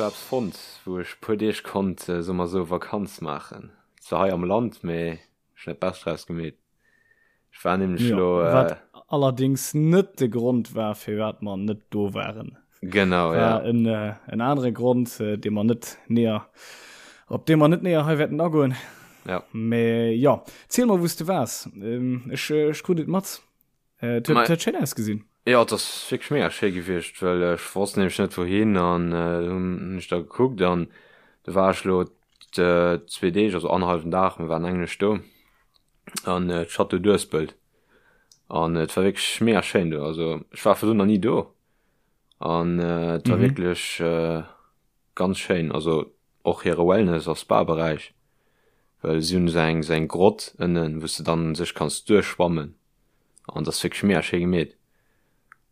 elo eppes fonnt, wou ech puer Deeg konnt, soe mer esou, Vakanz maachen. Zwar hei am Land, mee ech hunn dat Bescht draus gemeet. Ech war nämlech Jo, elo, wat allerdings net de Grond war, firwat mer net do waren. Genau, War ja. en, en anere Grond, dee mer net näher, op dee mer net näher hei wäerten agoen. Ja. Mee jo, ziel mer, wou s de waars. Ech, ech krut et mat. Et huet, huet schéin ausgesinn. Jo, et ass wierklech mega schéi gewiescht, well ech wosst nämlech net wouhin an hunn ech da gekuckt an du war ech lo zwee Deeg, also annerhallwen Dag, mir waren eng Nuecht do an d'Château d'Uespelt an et war wierklech mega schéin do, also ech war virdrun nach ni do an et war wierklech ganz schéin, also och hire Wellness a Spa-Beräich, well si hunn esou eng esou eng Grott ënnen, wou s de dann u sech kanns duerchschwammen an dat ass wierklech mega schéi gemeet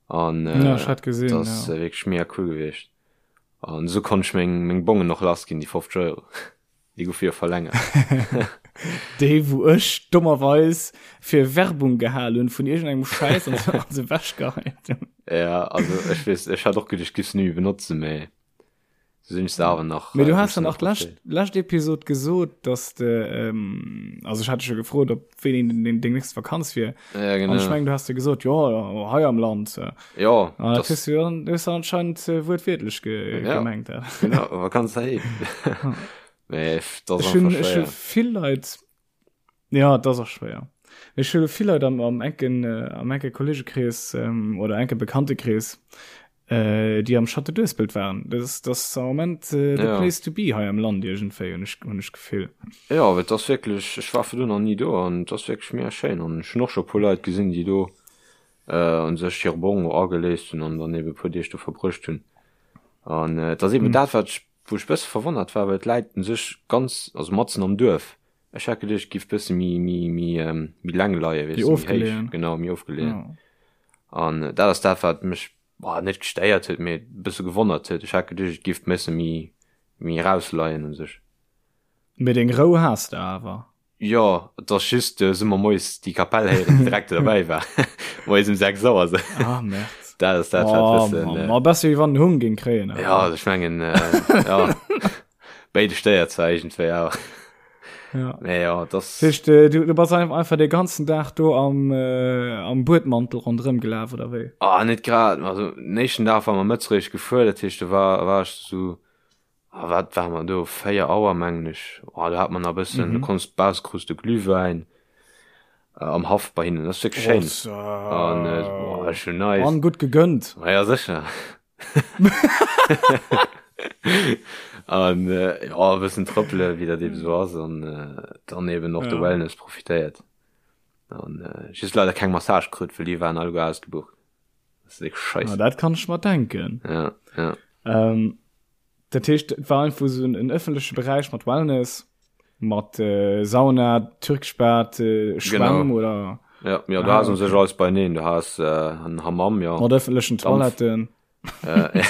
an Ja, ech hat gesinn, dat ass ja. wierklech mega cool gewiescht an esou konnt ech meng meng Bongen och lass ginn, déi 50 Euro, déi goufe jo verlängert. Déi wou ech dommerweis fir Werbung gehal hunn vun iergendengem Schäiss an se an se ewechgeheit hunn. Ja, also ech weess, ech hat och geduecht, ech giff se ni méi benotzen, mee Sinn ech se awer nach. Mee du has dann och d'lescht, lescht Episod gesot, dass de, ähm, also ech hat dech jo gefrot, ob wéini deng, deng nächst Vakanz wier. Ja, genau. An ech mengen, du has de gesot, jo, jo, hei am Land. Jo. An dat hues du jo dann, hues du anscheinend äh, wuertwiertlech ge ja. gemengt. Ja. Genau, Vakanz heiheem. Mee dat ass Ech hunn, einfach ech hu schwéier. vill Leit, Ja, et ass och schwéier. Ech hu vill Leit am, am enken, äh, am enke Kollegekrees ähm, oder enke Bekanntekrees, äh, déi am Château d'Uespelt waren. Dat ass, dat ass am Moment äh, the Ja. place to be hei am Land iergendwéi, hunn ech, hunn ech d'Gefill. Jo, et ass wierklech, ech war virdrun nach ni do an et ass wierklech mega schéin an ech hunn och scho e puer Leit gesinn, déi do äh, un sech hire Bong ageléist hunn an dann eben e puer Deeg do verbruecht hunn. An äh, et ass eben dat, wat ech, wou ech e bësse verwonnert war, well et läit un sech ganz, also matzen am Duerf. Ech hat geduecht, et giff bësse méi, méi, méi, méi leng leien, weess Méi de, méi héich. ofgeleeën. Genau, méi ofgeleeën. Ja. An dat ass dat, wat mech, boah, net gestéiert huet, mee bësse gewonnert huet. Ech hat geduecht, et giff bësse méi, méi erausleien u sech. Mee deng Rou has de awer. Jo, et ass just, du hu mer moies déi Kapell héieren, déi direkt do derbäi war. Moies um 6 Auer sou. Ah, Merde. Dat ass dat, wat Oh, bëssen, Mann. Ma besser wéi wann en Hung géing kréien, awer. Ja, also ech mengen, ja. Béide stéiert zwar iergendwéi awer. Ja. Mee ja, das. Heescht, äh, du, du bass einfach de ganzen Dag do am, äh, am Buedmantel ronderëm gelaf oder wéi? Ah, net grad. Also, den éischten Dag war mer mëtzeréischt gefuer, dat heescht, do war, war ech sou, ah, wat war mer do, 4 Auer mengen ech. Ah, do hat mer nach e bëssen, du konns baus, krus de Glühwäin äh, am Haff bei hinnen. Dat ass wierklech schéin. An, äh, boah, schon nice. An gutt gegönnt. Ma ja, sécher. An äh, ja, e bëssen trëppele, wéi dat eben sou ass, an äh, dann eben och de Ja. Wellness profitéiert. An äh, just leider keng Massage krut, well déi waren alleguer ausgebucht. Dat ass wierklech Ah, scheiße. dat kann ech mer denken. Ja, ja. Ähm, dat heescht, et war einfach sou en, en ëffentleche Beräich mat Wellness, mat äh, Sauna, türkesch Bad, äh, Schwämm Genau. oder Ja, ja, du Ah, has un okay. sech alles beineen. Du has äh, en Hammam, ja. mat ëffentlechen Dampf. Toiletten. Äh,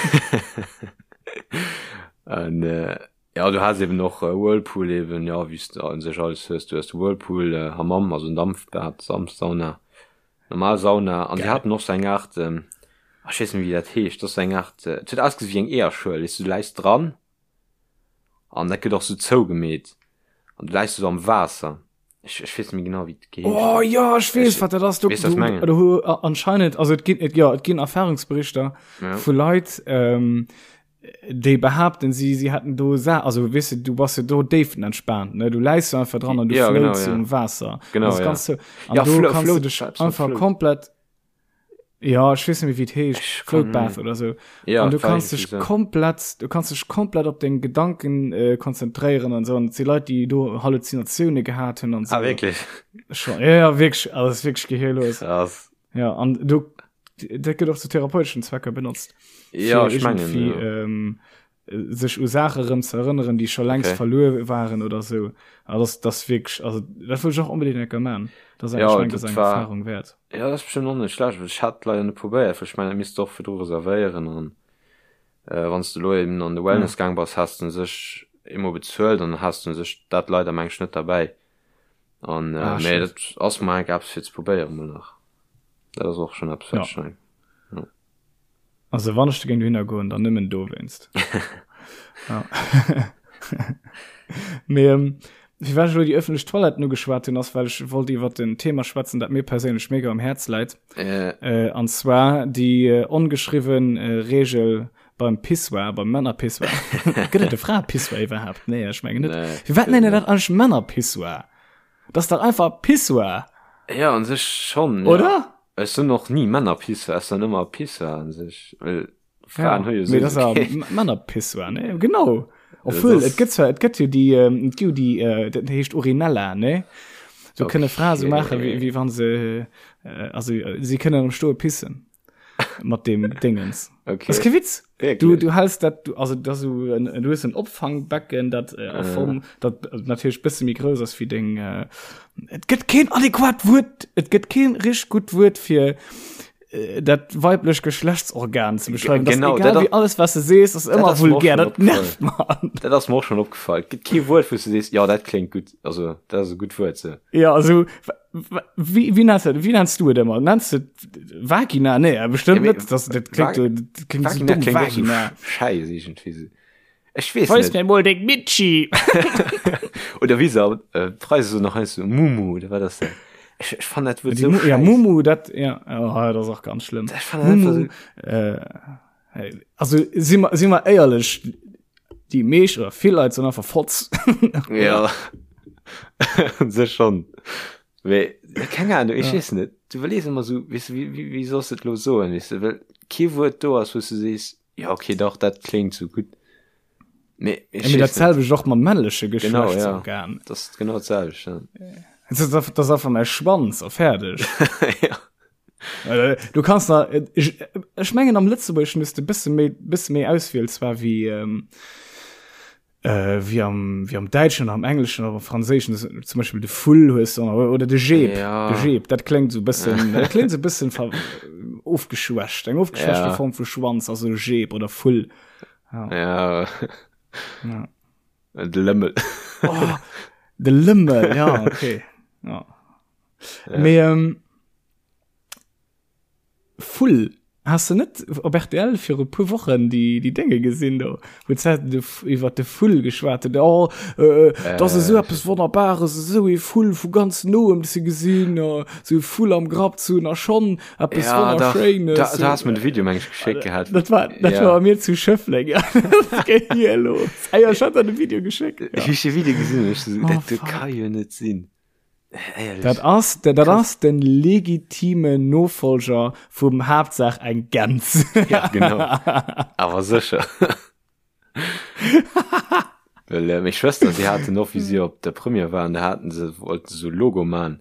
an, äh, ja, du has eben och äh, Whirlpool eben, ja, wéi s du un sech alles hues. Du hues de Whirlpool, äh, Hammam, also en Dampfbad, Dampfsauna, normal Sauna. An si Geil. haten och sou eng Aart, ähm, ah, ech weess net méi, wéi dat heescht, dat ass sou eng Aart, äh, et huet ausgesinn wéi eng Eeërschuel, weess du, du läis dran an dat gëtt och sou zougemeet an du läis sou am Waasser. Ech, ech weess net méi genau, wéi et geheescht Oh huet. ja, ech weess, Ech- wat dat ass. Du, weess, was du, mengen. du, hu- a- anscheinend, also et ginn, et, ja, et ginn Erfahrungsberichter Ja. vu Leit, ähm, déi behaapten, si, si hätten do Sa also weess du, du bass jo do déifenentspaant, ne? Du läis jo einfach dran an du Ja, genau, floats ja. um Waasser. Genau, Das ja. ganz so, an Ja, do Flo- kannst du Float, dech eppes mat einfach Float. komplett, ja, ech weess net méi, wéi et heescht, Ech Float kann- Bath oder so. Ja, an du war kannst irgendwie dech so. komplett, du kannst dech komplett op deng Gedanken äh, konzentréieren an so. An et si Leit, déi do Halluzinatioune gehat hunn an so. Ah, wierklech? Schon, ja, ja, wierklech, also das ist wierklech gehirlos. Krass. Ja, an du, dat gëtt och zu therapeuteschen Zwecker benotzt. Ja, fir ech mengen, irgendwie, ja. ähm, sech u Saache rëm ze erënneren, déi scho längst Okay. verluer waren oder sou. Also das, das wierklech, also dat wëll ech och onbedéngt eng Kéier man. Dat ass eng, Ja, ech mengen, dat dat ass eng war- Erfahrung wäert. Ja, dat ass bestimmt och net schlecht. Ech hat leider net probéiert, well ech mengen, dat misst de och virdru reservéieren an äh, wann s de elo eben an de Wellness gaang bass, has de sech eemol bezuelt an has de sech dat leider meng ech net derbäi. An äh, Ah, mee shit. dat ass mol enk eppes fir ze probéieren mol nach. Dat ass och schon eppes, wat Ja. ech mengen. Also wann ech géing dohinner goen, dann nëmmen dowéinst. Ja. Mee ähm, firwat ech elo déi ëffentlech Toiletten ugeschwat hunn, ass well ech wollt iwwer en Thema schwätzen, dat mir perséinlech mega um Häerz läit. Äh. Äh, an zwar déi äh, ongeschriwwen äh, Regel beim Pissoir, beim Männerpissoir. Gëtt et e Fraepissoir iwwerhaapt? Nee, ech mengen net. Nee, Firwat nenne dat eigentlech Männerpissoir? Dat ass dach einfach Pissoir. Ja, an sech schon. Ja. Oder? Ech soen och ni Männerpissoir, ech soen ëmmer Pissoir an sech. Well Fraen ja, hu jo mee das sowieso ass keen. Männerpissoir, ne? Genau. Obwohl, das et gëtt zwar, et gëtt jo déi, ähm, et gi jo déi, äh, dat heescht Urinella, ne? So kënne Frae so maachen, wéi, Okay. wéi wann se, äh, also äh, si kënnen am Stoe pissen. Mat dem Dingens. Okay. Das ist kein Witz. Du, Wirklich? du hältst dat, du, also das so en, du hues en Opfangbecken, dat äh, a Form, dat äh, natierlech bësse méi grouss ass wéi deng, äh, et gëtt keen adequat Wuert, et gëtt keen richteg gutt Wuert fir äh, dat weiblech Geschlechtsorgan ze beschreiwen. Das Genau, egal dat wie alles was du sees, ass ëmmer ass mir och vulgär, schon dat nervt man. Dat ass mir och schon opgefall. Et gëtt kee Wuert, wou s du sees, ja, dat kléngt gutt. Also, dat ass e gutt Wuert, sou. Ja, also wie, wie nennst du, wie nennst du et ëmmer? Nennst du Vagina? Nee, bestimmt Ja, mee net. Das, dat klingt, Vag- dat klingt so Vagina dumm, kléngt och sou Vagina. schäiss iergendwéi sou. Ech weess Weis net. mir mol deng Mitschi. Oder wéi se äh, d'Preise so nach heiansdo so Mumu oder wat ass dat? Ech, ech fannen dat Wuert Die sou Mu ja, schäiss. Mumu, dat, ja, oh, dat ass och ganz schlimm. Ech fannen dat einfach Mumu, sou. äh, hey, also si mer, si mer éierlech, déi meescht oder vill Leit sinn einfach Fotz. Ja. Sech schon. Mee, keng Ahnung, ech Ja. weess net. Du iwwerlees ëmmer sou, weess du, wéi, wéi, wéi solls de et lo soen, weess du, well kee Wuert do ass, wou s du sees, Ja, okay, dach, dat kléngt sou gutt. Mee ech Ja, mee dat weess net. selwecht och mam männleche Genau, ja. Geschlechtsorgan. Dat ass genau dat selwecht, ja. Das ist einfach, das ist einfach mäi Schwanz a fäerdeg. ja. Äh, Du kanns nach, äh, ech, ech mengen am Lëtzebuergeschen hues de bësse méi, bësse méi Auswiel zwar wéi, ähm, äh, wéi am, wéi am Däitschen oder am Engleschen oder am Franséischen. Das, zum Beispiel de Vull hues du, oder de Jeep. Ja. De Jeep, dat kléngt so bëssen, dat kléngt so bëssen ver, ofgeschwächt. Eng ofgeschwächte Ja. Form vu Schwanz, also Jeep oder Vull. Ja. Ja. De Lëmmel. Oh, de Lëmmel, ja, okay. Ja. Ja. Mee, ähm, Vull, has de net op rtl viru puer Wochen déi déi Dénge gesinn do, wou d'Zäiten de iwwer de Vull geschwat hunn, oh äh, dat ass esou eppes Wonnerbares, esou ee Vull vu ganz noem ze gesinn, esou e Vull am Grapp ze hunn a schonn eppes Ja, dach, Wonnerschéines. da, da has mir de Video meng ech geschéckt gehat. Dat war, dat Ja. war bei mir zu Schëffleng, ja. Dat geet hier los. Ah ja, ech hat der de Video geschéckt. Ech Ja. hu de Video gesinn an ech so, Oh, dat do fuck. ka jo net sinn. Éierlech. Dat ass, dat ass den legitime Nofolger vum Haaptsaach eng Gäns. Ja, genau. Awer sécher. Well äh, meng Schwëster, si haten och, wéi si op der Première waren, da haten se, wollten se so Logo man.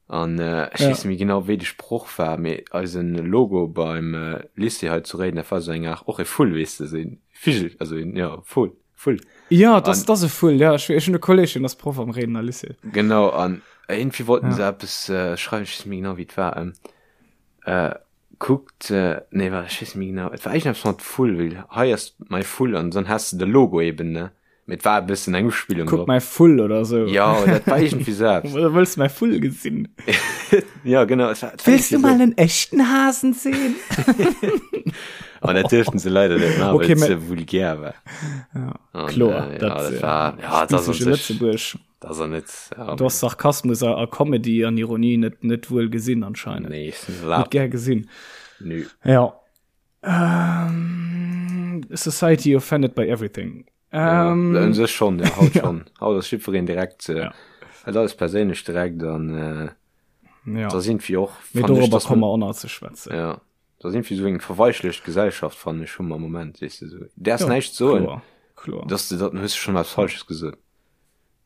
An äh, ech Ja. weess net méi genau, wéi de Sproch war, mee eisen Logo beim äh, Lycée hei zu Réiden, dat war sou eng Aart, och e Vull, weess de, sou een Vigel, also een, ja, Vull. Vull. Ja, das, das e Vull, ja. Ech, ech hunn e Kolleg, deen ass Proff am Réidener Lycée. Genau, an irgendwie wollten Ja. se eppes äh, schreiwen, ech weess net méi genau, wéi et war. Ähm, äh, kuckt, äh, nee, war, ech weess net méi genau, et war iergendeppes mat Vull, well hei ass mäi Vull an dann has de de Logo eben, ne? Mee et war e bëssen eng Uspillung Kuck drop. mäi Vull oder sou. Ja, dat war iergendwéi sou eppes. Oder wëlls du mäi Vull gesinn? Ja, genau, et war, et war Willst du iergendwéi mal sou. en echten Hasen sehen? An dat duerften se leider net maachen, Okay, well et mä- ze vulgär war. Ja, An, kloer, äh, dat, ja, dat äh, war, ja, dat ass an spezifische sech, Lëtzebuerg. dat ass an net, ja, Du hast Sarkasmus a, a Comedy an Ironie net, net wuel gesinn anscheinend. nee, ist net Net erlaabt. gär gesinn. Nö. Ja. Ähm, Society offended by everything. Ja, Ähm, un sech schon, ja, haut ja. schon. Haut ass jiddwereen direkt, äh, Ja. hat alles perséinlech direkt an, äh, Ja. da sind wir och, Mee fand ich, dorobber dass komme man, mer och nach ze schwätzen. ja, da sind wir so eng verweichlecht Gesellschaft, fand ich, hu mer am Moment, weess de, so. Däerfs Ja, näischt soen, kloer, kloer. dass de dat, dann hues de schon eppes Falsches gesot.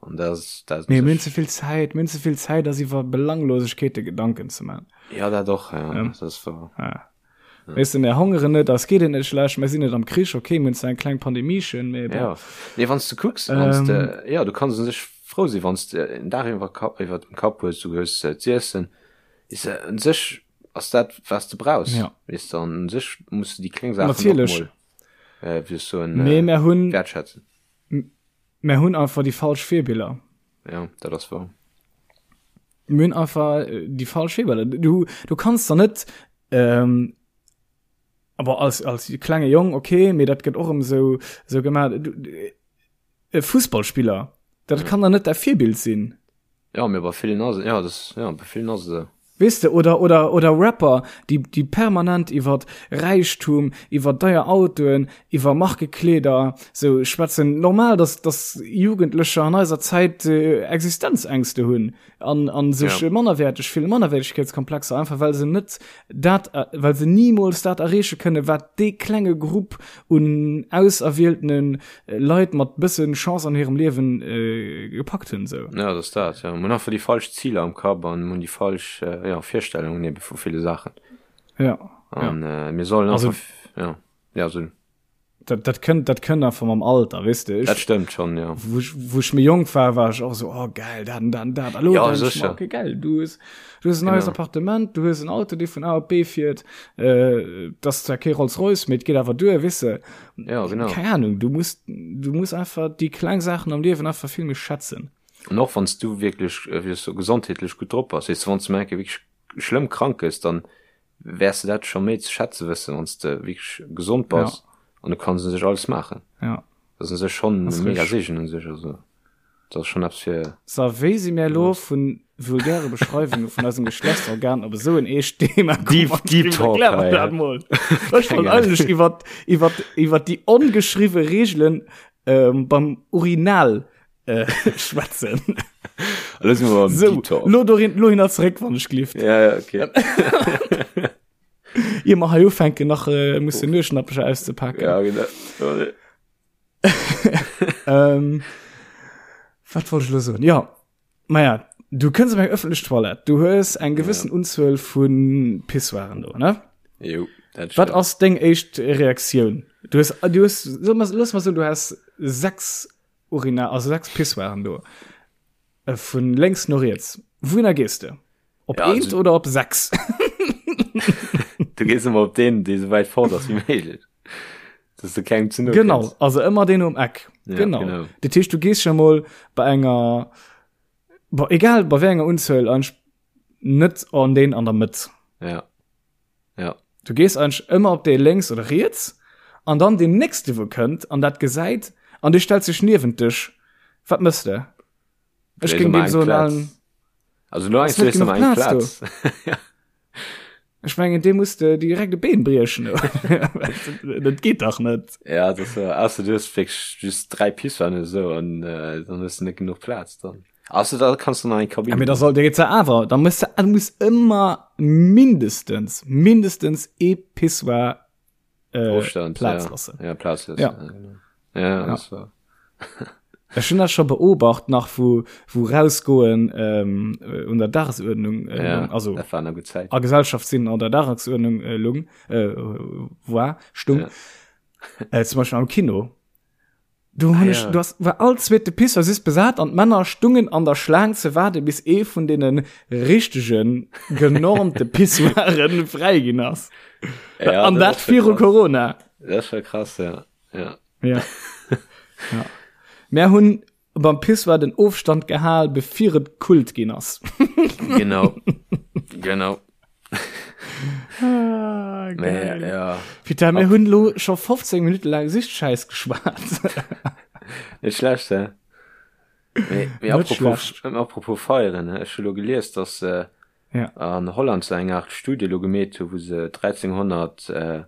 An dat ass, dat ass Mee mir hunn ze vill Zäit, mir hunn ze vill Zäit, eis iwwer Belanglosegkeete Gedanken ze man. Ja, dat och, ja, Ähm, dat ass wahr. ja. Weess de, mir hongeren net, eis geet et net schlecht, mir sinn net am Krich, okay, mir hunn zwar eng kleng Pandemiechen, mee bon. Ja, nee, wann s de kucks, wann s Ähm, de, ja, du kanns un sech frou sinn, wann s de en Daach iwwer Kapp, iwwer dem Kapp hues, du hues äh, z'iessen, is se un sech ass dat, was de brauchs, Ja. weess de, an un sech muss du déi kleng Saachen och Natierlech. mol, äh, wéi ech soen, Mee äh, mir hunn, wertschätzen. mir hunn einfach déi falsch Virbiller. Ja, dat ass wahr. Mir hunn einfach äh, déi falsch Virbiller. Du, du kanns der net, ähm, Aber als, als klenge Jong, okay, mee dat gëtt och ëm sou, sou gemaach. E Fussballspiller, dat ja. kann der net däi Virbild sinn. Ja, mee bei villen ass ja, das, ja, bei villen ass et esou. Weess de, oder, oder, oder Rapper, déi, déi permanent iwwer Räichtum, iwwer deier Autoen, iwwer Markekleeder sou schwätzen. Normal, dass, dass Jugendlecher an eiser Zäit äh, Existenzängste hunn an, an sech ja. mannerwäerteg fillen, Mannerwäertegkeetskomplexer, einfach well se net dat, äh, well se nimools dat erreeche kënne, wat dee klenge Grupp un auserwieltene Leit mat bëssen Chance an hirem Liewen äh, gepackt hunn sou. Ja, dat ass dat, ja. Mir hunn einfach déi falsch Ziler am Kapp an hunn déi falsch äh, ja, Virstellungen ebe vu ville Saachen. Ja. An ja. Äh, mir sollen also, einfach, ja, ja, so. Dat, dat kënnt, dat kënnt einfach mam Alter, weess de. Dat stëmmt schon, ja. Wou ech, wou ech méi jonk war, war ech och sou, oh geil, dat an dat an dat. A lo ja, denk ech mer, okay, geil, du hues, du hues en neies Genau. Appartement, du hues en Auto, dee vun A op B fiert, äh, dat ass zwar kee Rolls-Royce, mee et geet awer duer, weess de. Ja, genau. Keng Ahnung, du muss, du muss einfach déi kleng Saachen am Liewen einfach vill méi schätzen. An och wann s du wierklech, äh, wéi soll ech soen, gesondheetlech gutt drop bass, weess de, wann s du mol eng Kéier wierklech schlëmm krank gëss, dann wäers de dat scho méi ze schätze wëssen, wann s de wierklech gesond bass ja. an du kanns u sech alles maachen. Ja. Dat ass u sech schonn e mega Seegen u sech, also dat ass schonn eppes fir. So, wéi si mir elo vu vulgäre Beschreiwunge vun eisem Geschlechtsorgan op esou en eescht Thema komm? Deep, deep Talk Erklär mer dat mol. Ech wollt eigentlech iwwer, iwwer, iwwer déi ongeschriwwe Reegelen ähm, beim Urinal äh, schwätzen. Elo si mer beim So, Deep Talk. lo dorin, lo hinner zeréck, wann ech glift. Ja, ja, okay. Ier mer hei ufänken, nach äh, musse Nueschnappecher auszepaken. Ja, genau. Sorry. Ähm, wat wollt ech lo soen? Ja, maja, du kënns op eng ëffentlech Toilette, du hues eng gewëssen Unzuel vu Pissoiren do, ne? Jo, dat Wat stimmt. ass deng éischt Reaktioun? Du hues, du hues, so mal, looss mal soen, du has 6 Urina, also 6 Pissoiren do. Äh, vun lénks no riets. Wouhinner gees de? Op Ja, eent also- oder op 6? Du gees ëmmer op deen, dee sou wäit fort ass wéi méiglech. Dass du kengem ze no Genau, kënns. also ëmmer deen um Eck. Ja, genau. genau. Dat heescht, du gees schon mol bei enger, bei, egal bei wéi enger Unzuel, eigentlich net an deen an der Mëtt. Ja. Ja. Du gees eigentlich ëmmer op dee lénks oder riets an dann deen nächste wou kënnt an dat gesäit an dee stellt sech niewent dech. Wat mëss de? Ech Léis géing ëmmer deem eng soen, Plaz. Alan, Also lo Ass net léis ëmmer genuch eng Plaz Plaz. Ja. Ech mengen dee muss de direkt e Been briechen. Dat geet dach net. Ja, dat ass, ausser du hues wierklech just 3 Pissoiren oder sou an äh, dann hues du net genuch Plaz dann. Ausser da kanns du nach eng Kabinn. Ja, mee da soll dir jetzt awer, da muss du muss ëmmer mindestens mindestens ee Pissoir äh, Ofstand, Plaz ja. lassen. Ja, Plaz lassen. Ja. Ja, genau. Ja, Ja. das war. Ech hunn dat scho beobacht nach wou wou rausgoen ähm, äh, un der Dagesuerdnung äh, Ja, lung, also dat war eng gutt Zäit. a Gesellschaft sinn an der Dagesuerdnung äh, lung äh, war stung Ja. äh, zum Beispiel am Kino. Du hun Ah, ech, ja. du hast, war all zweete Pissoir just besat an d'Männer stungen an der Schlaang ze waarde bis ee vun deene richtegen genormte Pissoiren fräi ginn ass. Ja, an dat ass schon viru krass. Corona. Dat ass scho krass, ja. Ja. Ja. ja. Mär hunn beim Pissoir den Ofstand gehal, bevir et Kult ginn ass. Genau. Genau. Ah, Mä, geil. ja. Peter, mir hunn lo scho 15 Minutte laang Sichtschäiss geschwat. Net schlecht, hä? Mee, mee Net apropos, schlecht. apropos feieren, hä? Ech hu lo gelies, dass se Ja. an Holland se eng Art Studie lo gemeet hu, wou se 1300 äh,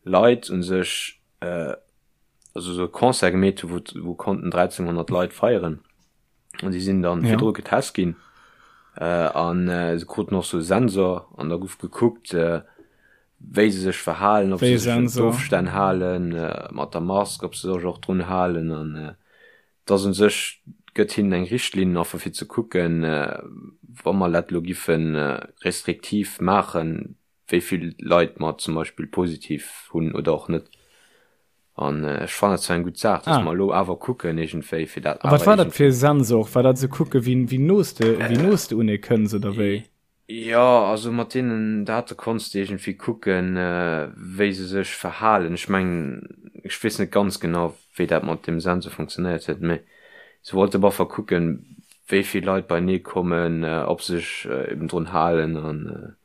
Leit un sech, äh, also sou e Concert gemeet hu, wou, wou konnten 1300 Leit feieren. An déi sinn dann Ja. virdru getest ginn. Äh, an äh, se kruten och sou e Sensor an da gouf gekuckt, äh, wéi se sech verhalen, ob Wéi se sech un Sensor? d'Ofstänn halen, äh, mat der Mask, ob se sech och drun halen an äh, dass un sech gëtt hinnen eng Richtlinn einfach fir ze kucken, äh, wa mer dat lo giffen äh, restriktiv maachen, wéi vill Leit mer zum Beispill positiv hunn oder och net. An ech fannen dat zwar eng gutt Saach, dass Ah. mer elo awer kucken iergendwéi, fir dat A wat awer war dat fir e iergendwéi. Sensor? War dat se kucke wéi wéi no s de wéi no s de un ee kënns oder wéi? Jo, also mat deenen Date konns de iergendwéi kucken, wéi se sech verhalen. Ech mengen, ech weess net ganz genau, wéi dat mat deem Sensor funktionéiert huet, mee se wollte op alle Fall kucken, wéi vill Leit beienee kommen, ob se sech eben drun halen an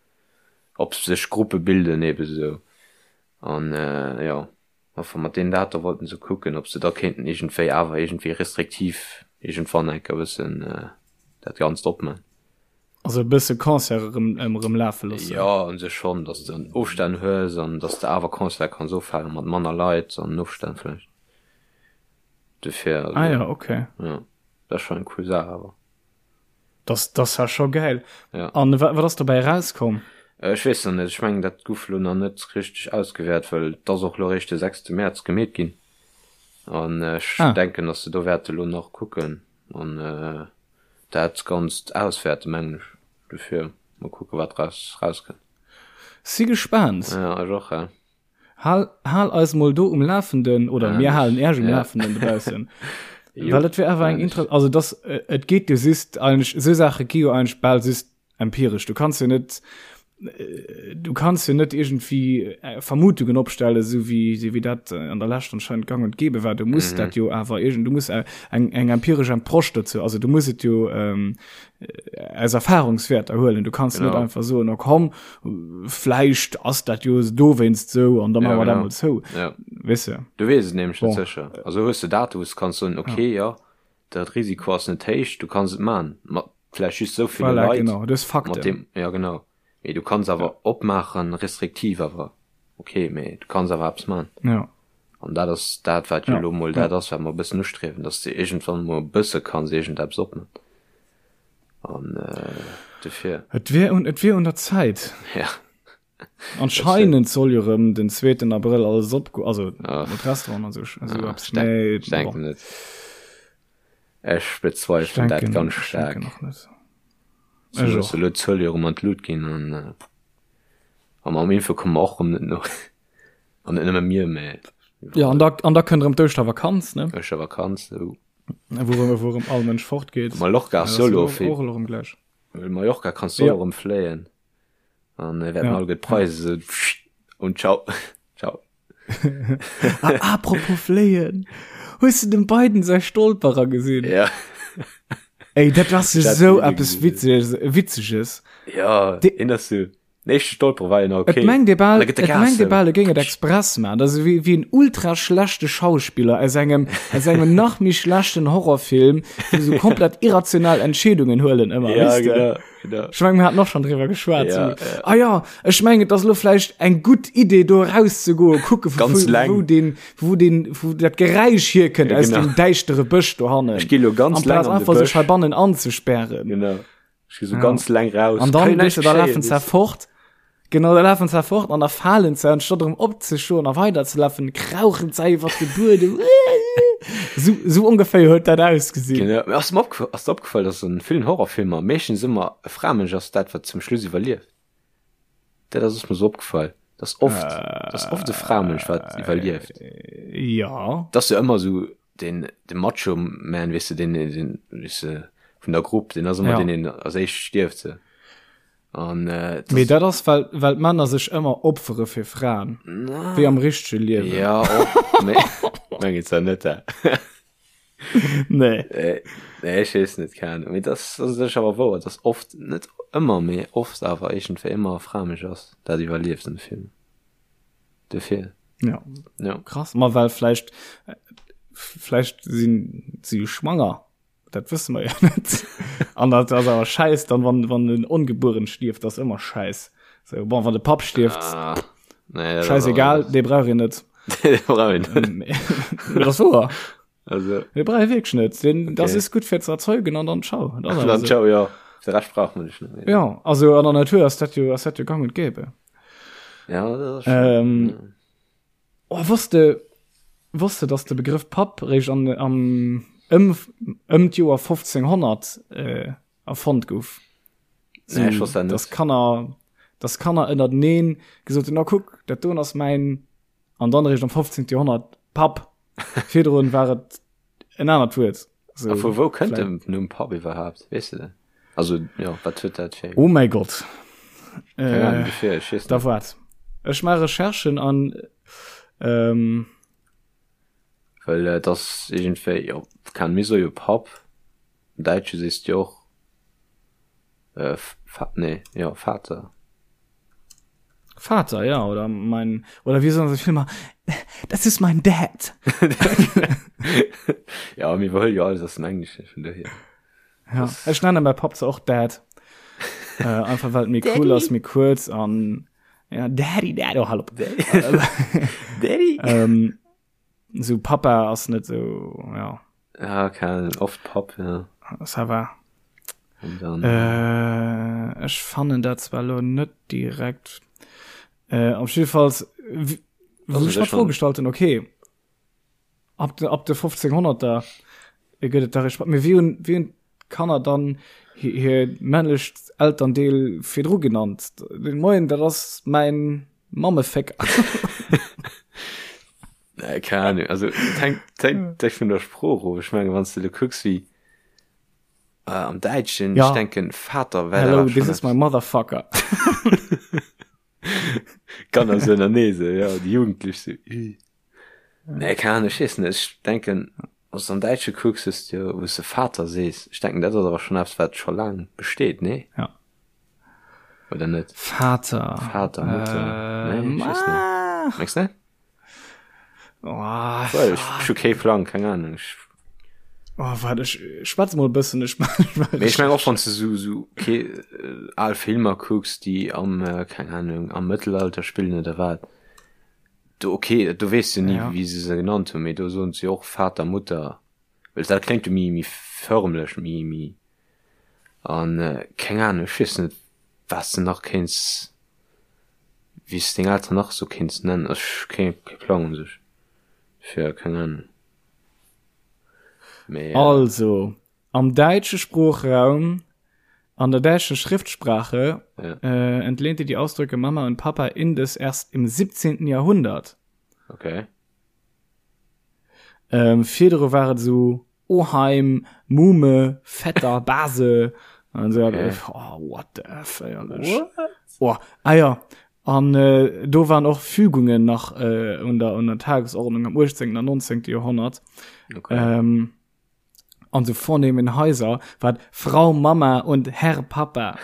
ob sech Gruppe bilden eben esou. An jo, enfin mat deenen Date wollten se kucken, ob se da kéinten iergendwéi awer iergendwéi restriktiv iergendwann eng Kéier e bëssen dat Ganzt opman. Also e bësse Concerte erëm erëm lafe loossen. Jo, u sech schonn, datt s de Ofstänn hues an datt s de awer Concerte kanns ofhalen mat manner Leit an Ofstänn vläicht. Dofir, also. Ah jo, okay. Jo, dat ass schonn eng cool Saach awer. Das, das war scho geil. Ja. An wat, wat ass dobäi rauskomm? Ech weess nach net, ech mengen dat guff lo nach net richteg ausgewäert, well et ass och lo eréischt de sechste Mäerz gemeet ginn. An ech ah. denken, dass se do wäerte lo nach kucken an äh, dat Ganzt auswäerte mengen ech. Dofir mol kucke wat raus rauskënnt. Si gespaant. Ja, ech och, ja. Hal, hal eis mol do um Lafenden oder mir halen Äerch um Lafenden dobaussen. Well et wär awer eng inter also das äh, et geet jo just eigentlich sou Saache gi jo eigentlich bal just empirisch. Du kannst jo net äh, du kannst jo net irgendwie äh, Vermutungen opstellen, so wie so wie dat äh, an der Lescht anscheinend gang und gäbe war. Du musst mhm. dat jo awer irgend du musst äh, eng eng empirisch Approche dazu. Also du musst et jo ähm, aus Erfahrungswerter huelen. Du kannst genau. net einfach so no komm vläicht ass dat jo dowéinst sou an da maache mer dat mol zou. Ja. Weess de? Du weess et nämlech net sécher. Also hues de Date wou s kanns soen, okay, ja, dat Risiko ass net héich, du kanns et man, mat vläicht just sou ville Voilà, Leit. genau, du hues Mat Fakten. deem, ja genau. Mee du kanns awer opmaachen, restriktiv awer, okay, mee du kanns awer eppes man. Ja. An dat ass dat, wat jo elo mol dat ass, wat mer e bëssen ustriewen, dass de iergendwann mol e bësse kanns iergendeppes opman. An dofir. Et wier un, et wier un der Zäit. Ja. Anscheinend soll jo rëm den zweeten Abrëll alles op, also mat Restauranten an sou, sou eppes. Mee Ech denken net. Ech bezweifelen dat ganz staark. Ech denken och net. Ech och. Elo d'Zuele jo rëm an d'Lut ginn an a mam Impfe komme mer och rëm net no. An net nëmme mir, mä. Jo, an da, an da kënnt rëm d'Ouschtervakanz, ne? Ouschtervakanz, sou. Wou rëm, wou rëm all Mënsch fort geet. Mallorca ass jo elo fir. Och elo rëm gläich. Mallorca kanns du och rëm fléien. An wäerten all gutt Preise sou und ciao. Ciao. Ah, apropos fléien. Hues du dem Biden säi Stolperer gesinn? Ja. Ey, dat ass sou eppes Witzeges. Witzeges. Ja, deen ass sou. Den éischte Stolperer war jo nach okay. Et mengt ee bal, et mengt ee bal, e géing et express maachen. Dat ass ewéi, wéi en ultra schlechte Schauspiller aus engem, aus engem nach méi schlechten Horrorfilm, wou se komplett irrational Entscheedungen huelen ëmmer, Ja, weess de? genau, genau. Ech mengen, mir haten och schonn driwwer geschwat. Ja, so, ja. Ah ja, ech mengen, et ass elo vläicht eng gutt Idee, do erauszegoen, kucke vu, Ganz vu, leng. wou den, wou den, wou dat Geräisch hierkënnt Ja, aus genau. dem däischtere Bësch dohannen. Ech gi lo ganz leng Amplaz an de einfach sech Bësch. heibannen anzespären. Genau. Ech gi so ganz leng raus. An dann, weißt du, da lafen ze fort. Genau, da lafen ze fort an da falen ze, anstatt erëm opzestoen a weiderzelafen, krauchen ze iwwer de Buedem. So, so ongeféier huet dat ausgesinn. Genau. Mee ass mir opgef ass dir opgefall, dass an villen Horrorfilmer meeschtens ëmmer e Framënsch ass dat, wat zum Schluss iwwerlieft? Dat ass ass mir so opgefall, dass oft, dass oft e Framënsch wat iwwerlieft. Ja. Dat ass jo ëmmer sou den, de Macho Man, weess de, den, den, weess de, vun der Grupp, den ass ëmmer Ja. deen, deen als éischt stierft, sou. An, äh, Mee dat ass, well, well d'Männer sech ëmmer opfere fir Fraen. Na. Wéi am richtege Liewen. Ja, och, mee, meng et zwar net, hè. Nee. Nee, nee, ech weess net, keng Ahnung. Mee das, das ass awer wouer, dass oft, net ëmmer, mee oft awer iergendwéi ëmmer e Framënsch ass, dat iwwerlieft an de Filmer. Dofir. Ja. Ja. Krass. Ma well vläicht, vläicht sinn si jo schwanger. Dat wësse mer jo net. An dat ass awer schäiss dann, wann, wann en Ongebueren stierft, dat ass ëmmer schäiss. So, bon, wann de Papp stierft, Ah, nee, dat ass schäissegal, awer- dee brauch een net. Dee brauch een net. Mee dat ass wouer. Also, Dee brauch ee wierklech net. Den, okay. Das ist gutt fir ze erzeugen an dann ciao. Das dann so. ciao, ja. De Rescht braucht man nicht. Ne? Ja, also an der Natur ass dat jo, ass dat jo gang und gäbe. Ja, das ist schon, ähm, ja. Oh, wosst de, wosst de, dass de Begrëff Papp réischt an, am, ëm, ëm d'Joer 1500 äh, erfonnt gouf? So, nee, ich wosst dat net. Dass Kanner, dass Kanner ënnerteneen gesot hunn, na kuck, dat doen ass mäin, an dann réischt am 15. Joerhonnert Papp. Virdrun war et en anert Wuert. So, A vu wou kënnt den Numm Papp iwwerhaapt? Weess de dat? Also, jo, wat huet dat fir. Oh mäi Gott. Keng Ahnung, dofir, ech weess Da net. waart. Ech maache Recherchen an, ähm. Well et ass iergendwéi, jo, keng Ahnung, mir soe jo Papp. Am Däitsche sees de jo och, äh, Fa-, nee, jo, Vater. Vater, ja, oder mein, oder wie sollen se Filmer, das ist mein Dad. ja, mir iwwerhuele jo alles aus dem Englesche, vun dohier. Ja, ech nenne mäi Papp zwar och Dad. äh, einfach well et méi cool ass, méi kuerz an ja, Daddy, Dad, oh, hallo. Daddy? ähm, so Papa ass net so, ja. Ja, keine Ahnung, oft Papp, ja. Ça va. Und dann, Äh, ech fannen dat zwar lo net direkt. Äh, op jiddefalls, wou Also, ech mer das d'Fro schon. gestallt hunn, okay, ab de, ab de 1500er gëtt et da Respekt. Mee wéi hunn, wéi hunn d'Kanner dann hir, hir männlecht Elterndeel virdru genannt? Den Moien, dat ass mäin Mammefécker. Nee, keine Ahnung. Also, et hängt, et hängt echt vun der Sprooch of. Ech menge, wann s de lo kucks, wéi äh, am Däitschen, Ja. ech denken, Vater wär Hello, da this is my motherfucker. Kanner so ënnerneese, ja, déi Jugendlech so. Ih. Nee, keine Ahnung, ech weess net. Ech denken, wann s de am Däitsche kucks, hues de jo, wou s de Vater sees. Ech denken, dat ass awer schonn eppes, wat scho laang besteet, nee? Ja. Oder net? Vater. Vater, Mutter. Äh, Nee, ech weess net. ah. Mengs net? Oh, Well, ech, ech hu kee Plang, keng Ahnung. Ech, oh, warte, ech schwätz mol e bëssen. Ech, Mee ech meng och wann s de sou, sou kee, äh, al Filmer kucks, déi am, äh, keng Ahnung, am Mëttelalter spillen oder wat. Do, okay, do weess du ni, Ja. wéi se se genannt hunn, mee do soen se jo och Vater, Mutter. Well dat kléngt jo méi, méi förmlech, méi, méi An keng Ahnung, ech weess net wat s de nach kéints, wéi s de deng Elteren nach esou kéints nennen. Ech hu kee kee Plang un sech fir, keng Ahnung. Mee. Also, am däitsche Sproochraum, an der däitschen Schriftsprache, Ja. entlehnte die Ausdrücke Mama und Papa indes erst im 17. Jahrhundert. Okay. Virdru war et esou Oheim, Mume, Vetter, Base an so. Okay. Oh, what the F, éierlech. Oh, ah ja. An äh, do waren och Fügungen nach äh, un der, un der Tagesordnung am 18. an 19. Jahrhundert. Okay. Ähm, an so vornehmen Häuser war Frau Mama und Herr Papa.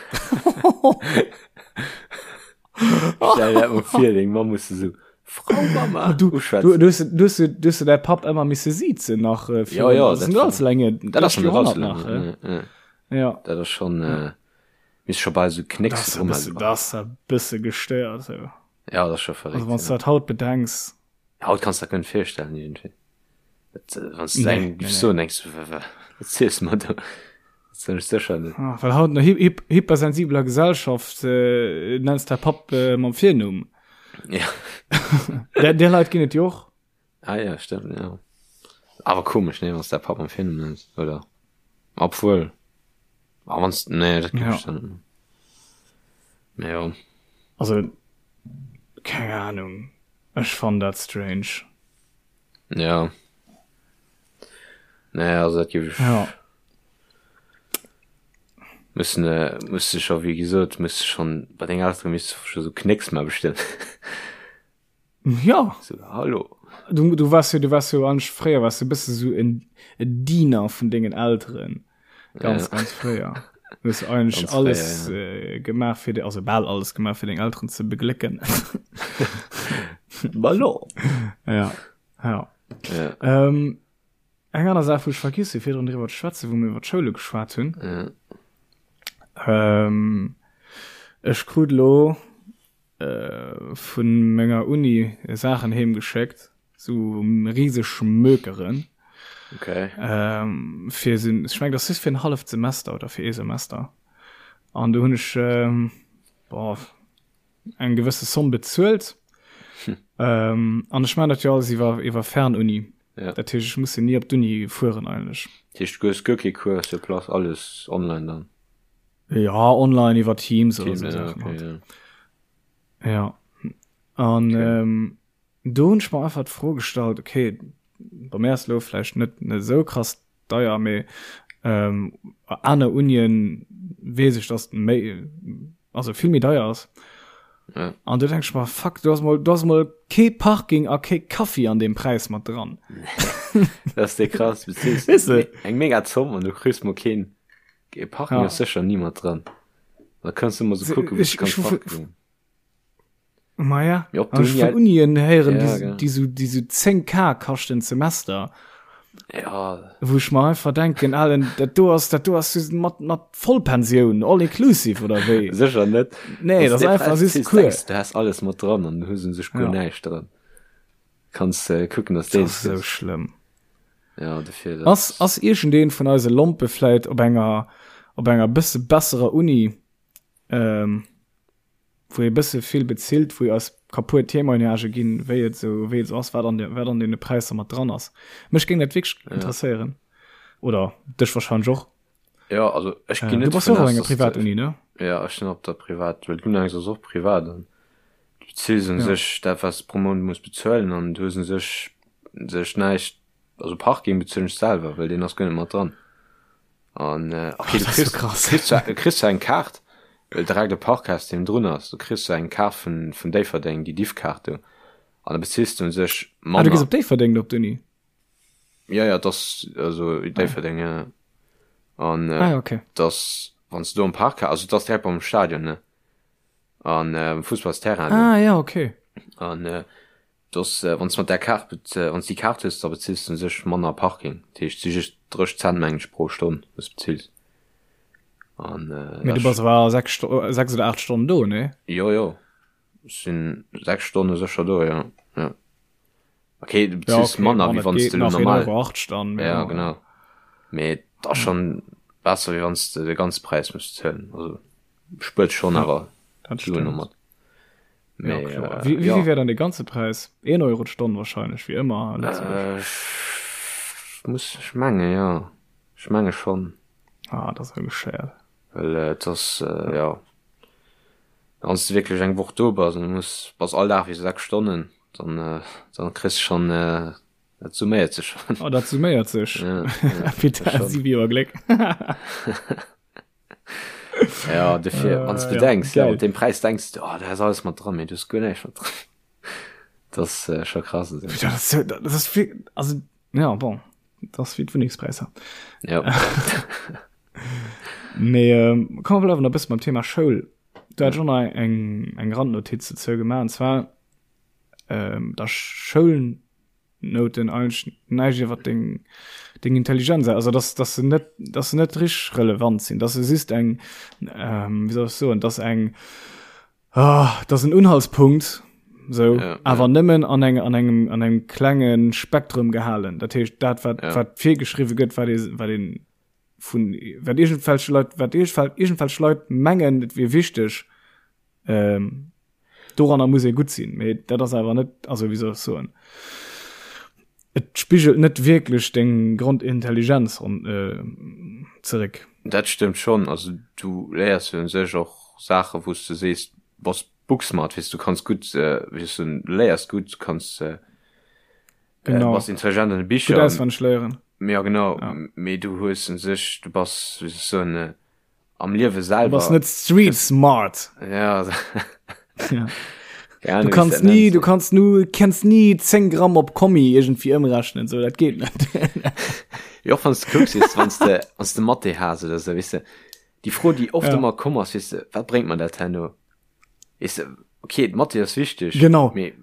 Stell dir dat mol vir, deng Mamm muss esou Frau Mama Du, uschwätzen. du, du, hast, du, hast, du hast däi Papp ëmmer misse siezen nach äh, Ja, ja, das dat sind war- ganz lange Dat ass schon net allzu nach lange. äh. Ja, ja. ja Dat ass schon, äh, misst scho bal sou das Knécks ist drum e bësse, das ist e bësse gestéiert so. Ja, dat ass scho verréckt. also wann du ja. dat haut bedenks Haut kanns du dat guer net virstellen iergendwéi. Dat, äh, wann du Nee, eng nee, giffs nee. soen, denkst du, wa- wa- wat ziels du mer do? Dat soen ech sécher net. ah, well haut an der hy hy hypersensibeler Gesellschaft äh, nennst däi Papp äh, mam Virnumm Ja. der, der Leit ginn et jo och Ah ja, stimmt, ja. Awer komesch, nee, wann du däi Papp mam Virnumm nenns, oder? Obwuel, ah, wann nee, dat giff Ja. ech dann net. Mee jo. also keng Ahnung ech fannen dat strange Ja. Nee, also dat giff ech. Ja. Müssen, äh, muss du schon, wie gesot, muss du schon bei den Elteren misst du schon so Knicks mal bestellen. Ja. So, hallo. Du, du warst jo, du warst jo eigentlich fréier warst du bësse so en, en Diener vun dengen Elteren. Ganz, Ja. ganz fréier. Du hast eigentlich Ganz alles fréier, äh, gemaach fir de, also bal alles gemaach fir deng Elteren ze beglécken. Ballon. ja. Ja. Ja. Ähm, eng aner Saach, wou ech vergiss hu virdrun driwwer ze schwätzen, wou mir iwwer d'Schoule geschwat hunn. Ja. Ähm, ech krut lo äh, vun menger Uni Saachen heem geschéckt, sou riseg Mökeren. Okay. Ähm, fir sinn, ech meng, dat ass just fir en halleft Semester oder fir ee Semester. An do hunn ech ähm, boah, eng gewësse Somm bezuelt. Hm. Ähm, an ech man dat jo alles iwwer, iwwer Fernuni. Ja. Dat heescht, ech muss jo ni op d'Uni fueren eigentlech. Dat heescht, du hues guer kee Cours sur place, alles online dann? Ja, online iwwer Teams oder Teams, so ja, Sachen okay, halt. ja. Ja. An Okay. ähm, do hunn ech mer einfach d'Fro gestallt, okay, bei mir ass lo vläicht net net esou krass deier, mee ähm, aner Unien weess ech, dass méi, also vill méi deier ass. Ja. An du denkst mer, fuck, du hast mol, du hast mol kee Parking a kee Kaffi an dem Preis mat dran. Das ist der krass, du beziehst Weißt du? eng mega Zomm an du kriegst mal keen kee Parking Ja. ass sécher ni mat dran. Da kannst du immer so kucken, wou Ich, du kannst ich, parken. Ma ja. Mee op An ech d'Uni vun Unien héieren, Ja, déi, genau. déi sou, déi sou 10K kaschten d'Semester. Ja. Wou ech mer einfach denken, Alen, dat do ass, dat do ass just mat, mat Vollpensioun, all inclusive oder wéi? Sécher net. Nee, Wanns dat de ass einfach Preis just ziehst, Cours. denkst du has alles mat dran an du hues un sech guer Ja. näischt dran. Kanns äh, kucken, dass Dat dees ass sou gëss. schlëmm. Ja, dofir dat. Ass, ass iergendeen vun eise Lompe vläit op enger, op enger bësse besserer Uni, ähm, wou ee bësse vill bezilt, wou eis ka puer Témoignagë ginn, wéi et esou, wéi et esou ass, wat an de, wat an deene Präisser mat dran ass. Mech géing dat wierklech Ja. interesséieren. Oder dech wahrscheinlech och. Ja, also ech Äh, ginn du net bass dovun och op aus, enger dass de, Privatuni, ne? ja, ech sinn op der Privat, well d'Unangs ass och privat an du bezils un Ja. sech dat, wat s de pro Mount muss bezuelen an du hues un sech sech näischt, also Parking bezuelen ech selwer, well deen ass guer net mat dran. An äh, okay, Oh, du dat ass so kriss, krass. kriss, zwar, du kriss zwar eng Kaart, well direkt e Parkhaus deen drun ass, du kriss zwar eng Kaart vun, vun Déifferdeng, déi Diffkaart do, an da bezills du un sech Ah, du gees manner. op Déifferdeng op d'Uni? Ja, ja, das, also Déifferdeng, ja. An äh, Ah, ja, okay. das, wann du do am Parkhaus, also das direkt beim Stadion, ne? An äh, am Fussballsterrain do. Ah, ja, okay. An äh, Dass wann s mat där Kaart, wann s déi Kaart hues, da bezills de u sech manner Parking. Dat heescht, et si just 30 Cent mengen ech pro Stonn wou s bezills. An Mee du bass awer 6 Sto 6 oder 8 Stonnen do, nee? Jo, jo, ech sinn 6 Stonne sécher do, jo, jo. Okay, du Ja, bezills okay, manner bon, wéi dat wann s geet de elo nach normal. 1,80 Euro dann, mee Ja, bon. genau. Mee et ass schonn besser wéi wann s de de ganze Präis muss bezuelen. Also spuert schonn Ja, awer dat Suen stëmmt. domat. Ja, Mee, kloer. äh, Wie, wie ja. vill wär dann de ganze Präis? 1 Euro d'Stonn wahrscheinlech, wéi ëmmer a Lëtzebuerg. Äh, ech muss, ech menge ja. Ech menge schonn. Ah, dat ass jo geschéiert. Well äh, et ass, äh, ja. Wann s de wierklech eng Woch do bass an du muss, bass all Dag wéi 6 Stonnen, dann, äh, dann kriss de schonn, äh, dat summéiert sech schonn. Oh, dat summéiert sech. Ja, ja, Peter, dat schonn. 7 Joer Gléck. Ja, dofir, wann s du Äh, ja, denkst, ja, geil. mat deem Präis denkst du, oh, da ass alles mat dran, mee du hues guer näischt mat dran. Dat ass äh, scho krass. Also. Dat ass, so- dat ass viel, also, ja, bon, dat ass wéi d'Wunnengspräisser. Ja. Mee, ähm, komm, wir bleiwen nach e bësse beim Thema Schoul. Du hat schon nach eng, eng Randnotiz dozou gemaach, und zwar, ähm, dass Schoulnoten eigentlech näischt iwwer deng, deng Intelligenz, also dass, dass se net, dass se net richteg relevant sinn, dass se just eng, ähm, wéi soll ech soen, dass eng, ah, dass en Unhaltspunkt, sou, Ja, awer ja. nëmmen an eng, an engem, an engem klenge Spektrum gehalen. Dat heescht, dat wat, Ja. wat virgeschriwwe gëtt, wat ee, wat een vun, wat iergendwelche Leit, wat iergendwelch Leit mengen, et wier wichteg, Ähm, doranner muss ee gutt sinn, mee dat ass awer net, also wéi soll ech soen, et spigelt net wierklech deng Grondintelligenz an, äh, zeréck. Dat stëmmt schonn. Also du léiers jo un sech och Saache wou s de sees, du bass booksmart, weess du kanns gutt, wéi soll ech soen, du léiers gutt, du kanns, du Genau. bass intelligent an de Gutt Bicher. auswenneg léieren. Ja genau, Ja. mee du hues un sech, du bass, wéi soll ech soen, am Liewe selwer. Du bass net street smart. Ja. ja. Ja, du kannst nie, du kannst nu kennst nie 10 Gramm op Kommi irgendwie ëmrechnen so dat geht net. Jo wann du kucks wann du wann du Mathe has oder so wisse die Fro die oft ja. immer komm ass wisse wat bringt man dat herno Weess de, okay, d'Mathé ass wichteg, Genau. mee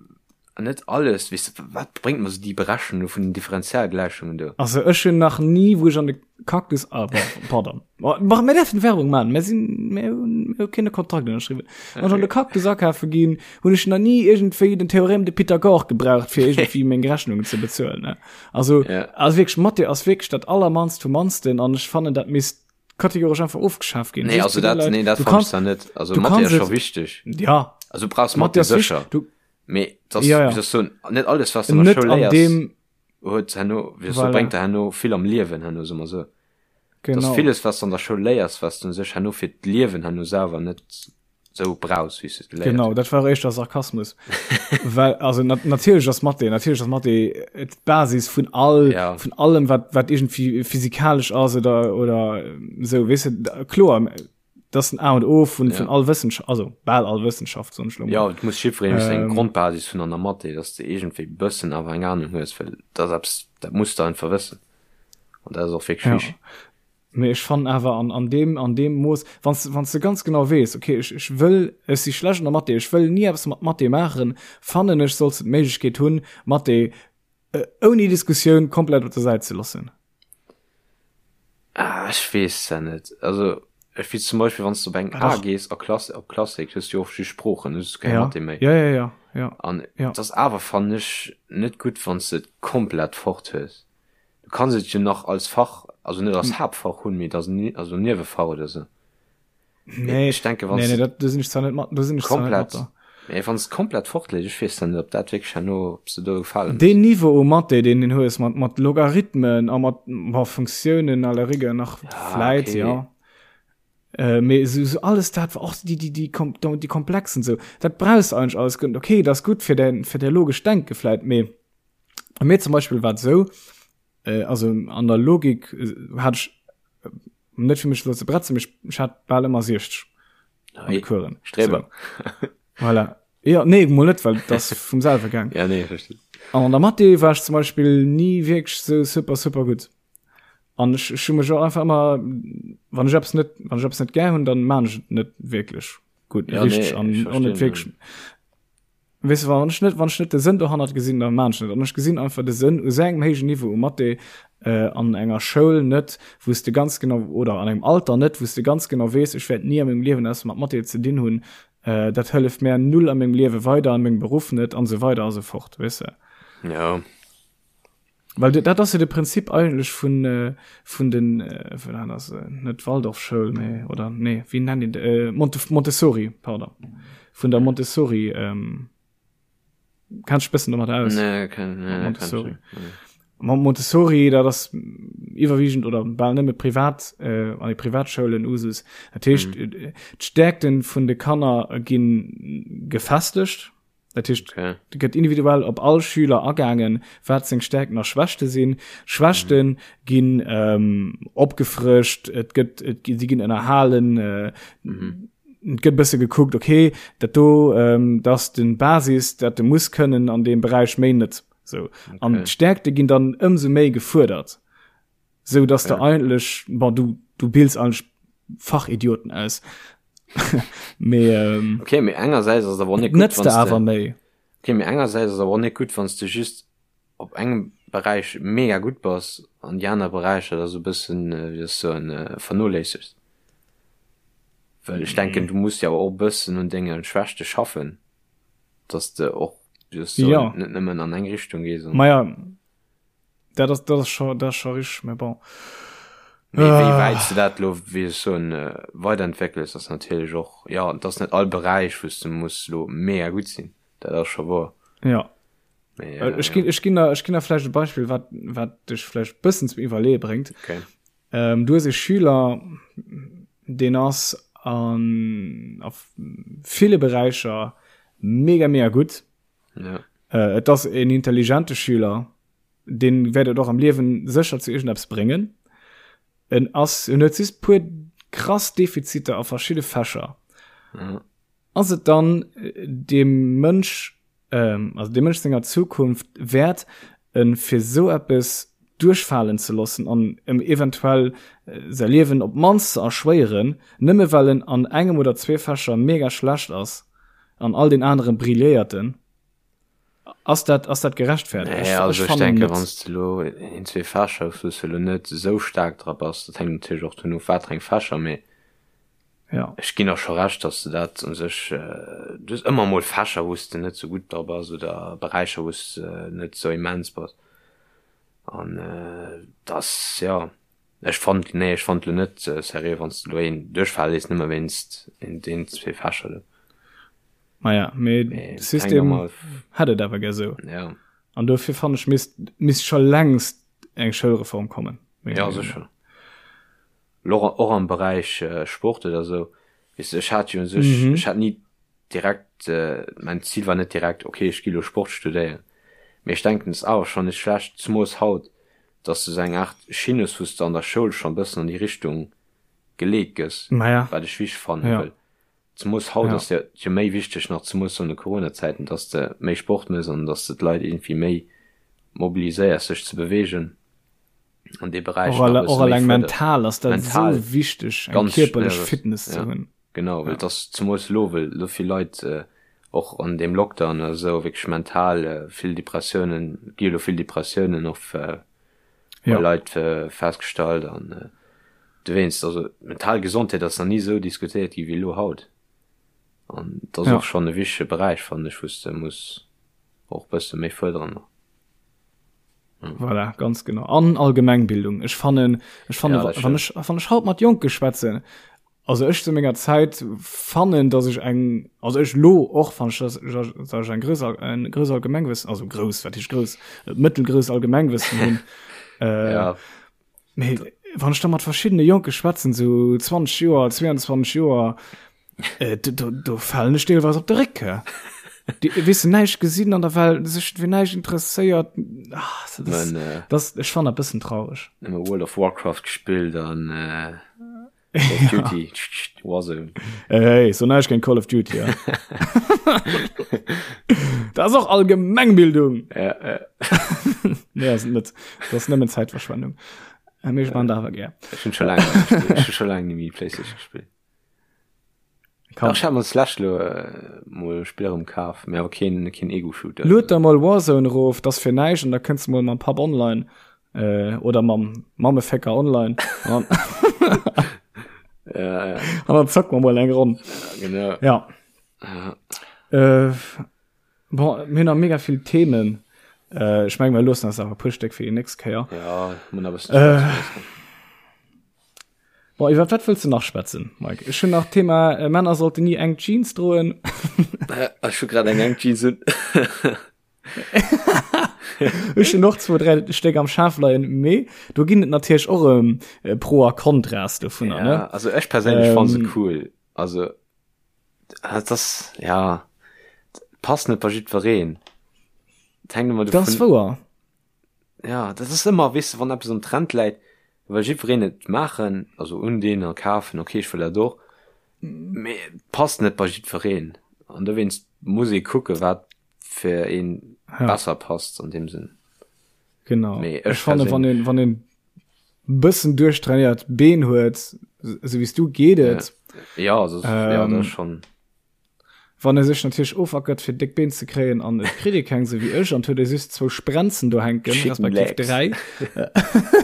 net alles, weess de, wat bréngt mer sou déi Berechnung vun den Differentialgläichungen do? Also ech hunn nach ni, wou ech an de Cactus, ah bon, pardon, ma mir däerfen Werbung maachen, mir sinn, mir hunn, mir hu keen Kontrakt ënnerschriwwen. Wann ech an de Cactus akafe ginn, hunn ech nach ni iergendwéi den Théorème de Pythagore gebraucht, fir iergendwéi meng Rechnungen ze bezuelen, ne. Also, Ja. also wierklech, Mathé ass wierklech dat allermannst vum mannsten an ech fannen, dat misst kategoresch einfach ofgeschaaft ginn. Nee, also dat, nee, dat du kannst da net. Also du Mathe kannst ass scho wichteg. Ja. Also du brauchst Mathe sécher. Du, Mee das, ja, ja. das so, net alles was du an der net Schoul an léiers, dem huet herno, wéi so, voilà. bréngt der herno vill am Liewen herno, soe mer sou. Genau. Dass villes was du an der Schoul léiers, was du sech herno fir d'Liewen herno selwer net sou brauchs, wéi s du et geléiert Genau, hues. dat war éischter Sarkasmus. Well, also nat natierlech ass Mathé, natierlech ass Mathé d'Basis vun all, Ja. vun allem, wat, wat iergendwéi physikalesch ass oder, oder sou, weess de, kloer, dat ass den A und O vun, Ja. vun all Wëssenschaft, also bal all Wëssenschaft, soen ech lo mol. Ja, et muss jiddwereen wéi seng Ähm. Grondbasis hunn an der Mathé, dass de iergendwéi bëssen awer eng Ahnung hues, well dat ass eppes, dat muss de einfach wëssen. An dat ass och wierklech Ja. wichteg. Mee ech fannen awer an, an deem, an deem Mooss, wann s, wann s de ganz genau weess, okay, ech, ech wëll, ech si schlecht an der Mathé, ech wëll ni eppes mat Mathé maachen, fannen ech, solls de d'Méiglechkeet hunn, Mathé ouni Diskussioun komplett op der Säit ze loossen. Ah, ech weess dat net. Also, ech weess zum Beispill, wann s de op eng A gees a Klass, op Klassik, hues du jo oft just Sproochen, hues du keng Ja, Mathé méi. ja, ja, ja, ja, An ja. et ass awer, fannen ech, net gutt, wann s de et komplett fort hues. Du kanns et jo nach als Fach, also net als Haaptfach hunn, mee als, also Niewefach oder sou. Nee, ech denke, wann nee, nee, dat, do sinn ech zwar net mat, do sinn ech zwar net mat komplett, mee wann s komplett fortleet, ech weess dann net, ob dat wierklech herno, ob s de do gefalen hues. Deen Niveau u Mathé, deen den hues, mat, mat Logarithmen a mat, bon, Funktiounen à la rigueur nach Ja, vläit, okay. ja. Äh, mee sou, sou alles dat, och déi, déi, déi, déi komplexen sou, dat brauchs de eigentlech alles guer net. Okay, dat ass gutt fir däin, fir däi logescht Denke vläit, mee Bei mir zum Beispill war et esou, äh, also an der Logik äh, hat ech äh, net fir mech lo ze bretzen, mee ech hat bal ëmmer 60 an de Coursen. Streber. So. Voilà. Ja, nee, mol net, well das vum selwe gaang. Ja, nee, verstehe. An an der Mathé war ech zum Beispill ni wierklech sou super, super gutt. An ech, ech hu mech och einfach ëmmer, wann ech eppes net, wann ech eppes net gär hunn, dann maan ech et net wierklech gutt, Ja, richteg nee, an ech och net verstinn. wierklech. Weess de, wann ech net, wann ech net de Sënn dohannert gesinn, da maan ech net. An ech gesinn einfach de Sënn u sou engem héijen Niveau u Mathé an enger Schoul net, wou s de ganz genau, oder an engem Alter net, wou s de ganz genau weess, ech wäert ni a mengem Liewen eppes mat Mathé ze dinn hunn, dat hëlleft mär null a mengem Liewe weider, a mengem Beruff net an esou weider a sou fort, weess de. Jo. Well dat ass jo de Prinzip eigentlech vun, vun den, vun dat ass net Waldorfschoul, mee, oder nee, wéi nennt een de, Monte, Montessori, pardon, vun der Montessori, ähm, kenns dech bëssen domat aus? Nee, ken, nee, kenn ech Montessori. net, nee. Montessori, dat ass iwwerwiegend oder bal nëmme privat, äh, an de Privatschoulen Usus. Dat heescht, mm. d'Stärkten vun de Kanner ginn gefestegt. Dat heescht, okay. gëtt individuell op all Schüler agaangen, wat seng Stärkten a Schwächte sinn. Schwächten mhm. ginn ähm, opgefrëscht, et gëtt et, si ginn ënnerhalen, äh, mhm. et gëtt bësse gekuckt, okay, dat do ähm, dat den Basis, dat de muss kënnen an dem Beräich méi net. So. Okay. An d'Stärkte ginn dann ëmsou méi gefuerdert. Sou dass ja. de eigentlech bon, du, du bills eigentlech Fachidioten aus. Mee, ähm, okay, mee engersäits ass awer net gutt, nëtzt de awer méi. Okay, mee engersäits ass awer net gutt, wann s de just op engem Beräich mega gutt bass an déi aner Beräicher da sou e bëssen, wéi soll ech soen, vernoléissegst. Well ech denken, du muss jo awer och e bëssen un denge Schwächte schaffen, dass de och, wéi soll ech soen, Ja. net nëmmen an eng Richtung gees. Maja, Dat ass, dat ass scho, dat ass scho richteg, mä bon. Mee wéi wäit s de dat elo, wéi ech soen, weiderentwéckels, ass natierlech och, jo, et ass net all Beräich, wou s de muss elo mega gutt sinn, dat ass scho wouer. Ja. Mee, Ech ginn, ech ginn der, ech ginn der vläicht e Beispill, wat, wat dech vläicht e bëssen zum Iwwerleeë bréngt. Okay. Ähm, du hues e Schüler, deen ass an, a ville Beräicher mega, mega gutt. Ja. Äh, et ass en intelligente Schüler, deen wäert et och am Liewen sécher zu iergendeppes bréngen. En ass, en huet just puer krass Defiziter a verschidde Fächer. Ja. Ass et dann äh, dem Mënsch, ähm, also dem Mënsch senger Zukunft wäert, en fir sou eppes duerchfalen ze loossen an em eventuell äh, säi Liewen op d'mannst ze erschwéieren, nëmme well en an engem oder zwee Fächer mega schlecht ass? An all den aneren brilléierten. Ass dat, ass dat gerechtfertigt? Nee, also ech denke wann s de elo een, zwee Fächer hues, wou s de elo net esou staark dra bass, dat hänkt natierlech och dovun of, wat fir eng Fächer, mee ja. ech ginn der scho Recht, datt s de dat u sech, du hues ëmmer emol Fächer, wou s de net esou gutt dra bass oder Beräicher, wou s de net esou immens bass an dass, jo. Ech fannt, nee ech fannt lo net seriö wanns de lo een duerchfale léiss nëmme wéinst een zwee Fächer do. Maja, mee de System hätt et awer gär sou. Ja. An dofir fann ech misst misst scho längst eng Schoulreform kommen. Ja sécher. Lo och am Beräich Sport oder sou, weess de ech hat jo u sech, ech hat ni direkt, mäin Zil war net direkt ok ech gi lo Sport studéieren, mee ech denken et ass awer schonn net schlecht, zemoos haut, dass de sou eng Aart Schinn hues, wou s de an der Schoul schonn e bëssen an déi Richtung geleet gëss, Maja. wat ech wichteg fannen, Ja. well zemoos haut Ja. ass jo jo méi wichteg nach, zemoos an de Coronazäiten, dass de méi Sport méchs an dass de d'Leit iergendwéi méi mobiliséiers sech ze beweegen. An dee Beräich Och alle, och alleng mental ass dat mental esou wichteg, eng kierperlech Fitness ze ja. hunn. Genau, well ja. dass zemools lo, well lo vill Leit äh, och an deem Lockdown oder sou wierklech mental äh, vill Depressiounen, gi lo vill Depressiounen och äh, bei ja. Leit äh, festgestallt an äh, dowéinst, also mental Gesondheet ass nach ni sou diskutéiert gi wéi lo haut. An dat ass ja. och schonn e wichtege Beräich, fannen ech, wou s de muss och bësse méi fuerderen nach. Voilà, ganz genau. An Allgemengbildung. Ech fannen, ech fannen, ja, wann ech, wann ech haut mat Jonke schwätzen, also ech zu menger Zäit fannen, dass ech eng, also ech lo och fan ech, dass, dass ech eng grouss, en grouss Allgemengwëssen, also grouss, wat heescht grouss, mëttelgrouss Allgemengwëssen hunn. Äh, ja. Mee wann ech da mat verschiddene Jonke schwätzen, sou 20 Joer, 22 Joer, äh, do, do, do falen ech deelweis op de Réck. Déi weess näischt gesinn an der Welt, sech fir näischt interesséiert. Ah, das, Man, äh, das, ech fan dat bëssen traureg. Nëmme World of Warcraft gespillt an äh, Call of Duty, Warzone. Hey, hey, so näischt géint Call of Duty, ja. Dat ass och Allgemengbildung. Ja, ja. Nee, ass et net. Dat ass nëmmen Zäitverschwendung. Äh, Mee ech man dat awer gär. Ech hunn scho laang net méi gespillt. Ech hu scho laang net méi Playstation gespillt. Kann. Ach, ech hat mer d'lescht lo äh, mol e Spill erëm kaf, mee awer keen, keen Ego-Shooter. Lued der mol Warzone erof, dat ass fir näischt an da kënns de mol mam Papp online äh, oder mam Mammefécker online an Ja, ja, an dann zocke mer mol eng Ronn. ja, genau. Ja. Ja. Äh, bon, mir hunn nach mega vill Themen. Äh, ech meng, mir loossen eis awer e puer Stéck fir déi nächst Kéier. Ja, mun a bëssen Äh, schwätzen. Bon, iwwer wat wëlls du nach schwätzen, Mike? Ech hunn nach Thema äh, Männer sollten nie eng Jeans droen. Äh, ech hu grad eng eng Jeans un. Ech hunn och zwou, dräi Stéck am Schaf leien, mee do ginn et natierlech och erëm äh, Pro a Kontras dovunner, Ja, ne? also ech perséinlech fann se Ähm, cool. Also dat ass ja passt net bei jiddwereen. Et hänkt ëmmer Dat ass dovun wouer. Ja, dat ass ëmmer, weess de, wann eppes am Trend läit, well jiddwereen et maachen, also undinn a kafen, okay, ech wëll dat och, mee et passt net bei jiddwereen. An dowéinst muss ee kucke wat fir een Ja. besser passt an deem Sënn. Genau. Mee Ech ech fanne wann perséinlech, een wann een bëssen duerchtrainéiert Been huet, sou wéi s du, geet ja, et. ja, also, ja, dat Ähm, ass schonn. Wann e sech natierlech ofackert fir déck Been ze kréien an et kritt ee keng sou wéi ech an et huet ee just zwou Sprenzen do hänken, Chicken respektiv Legs. 3,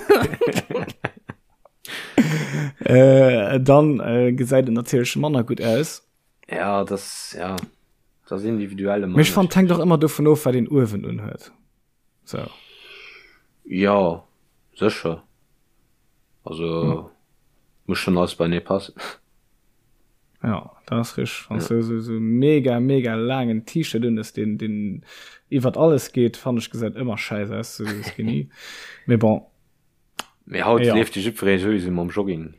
äh, dann äh, gesäit et natierlech manner gutt aus. Ja, das, ja, das ass individuell ëmmer Mee ech fannen, et hänkt och ënnerschiddlech. ëmmer dovun of, wat een uewen unhuet. Sou. Jo, sécher. Also muss schon alles beienee passen. Ja, dat ass richteg. Wann Ja. du sou sou mega mega laangen T-Shirt un hues, deen deen iwwert alles geet, fannen ech gesäit ëmmer schäiss aus, sou skinny. Mee bon. Mee haut Ja. leeft jo jiddweree souwisou mam Jogging.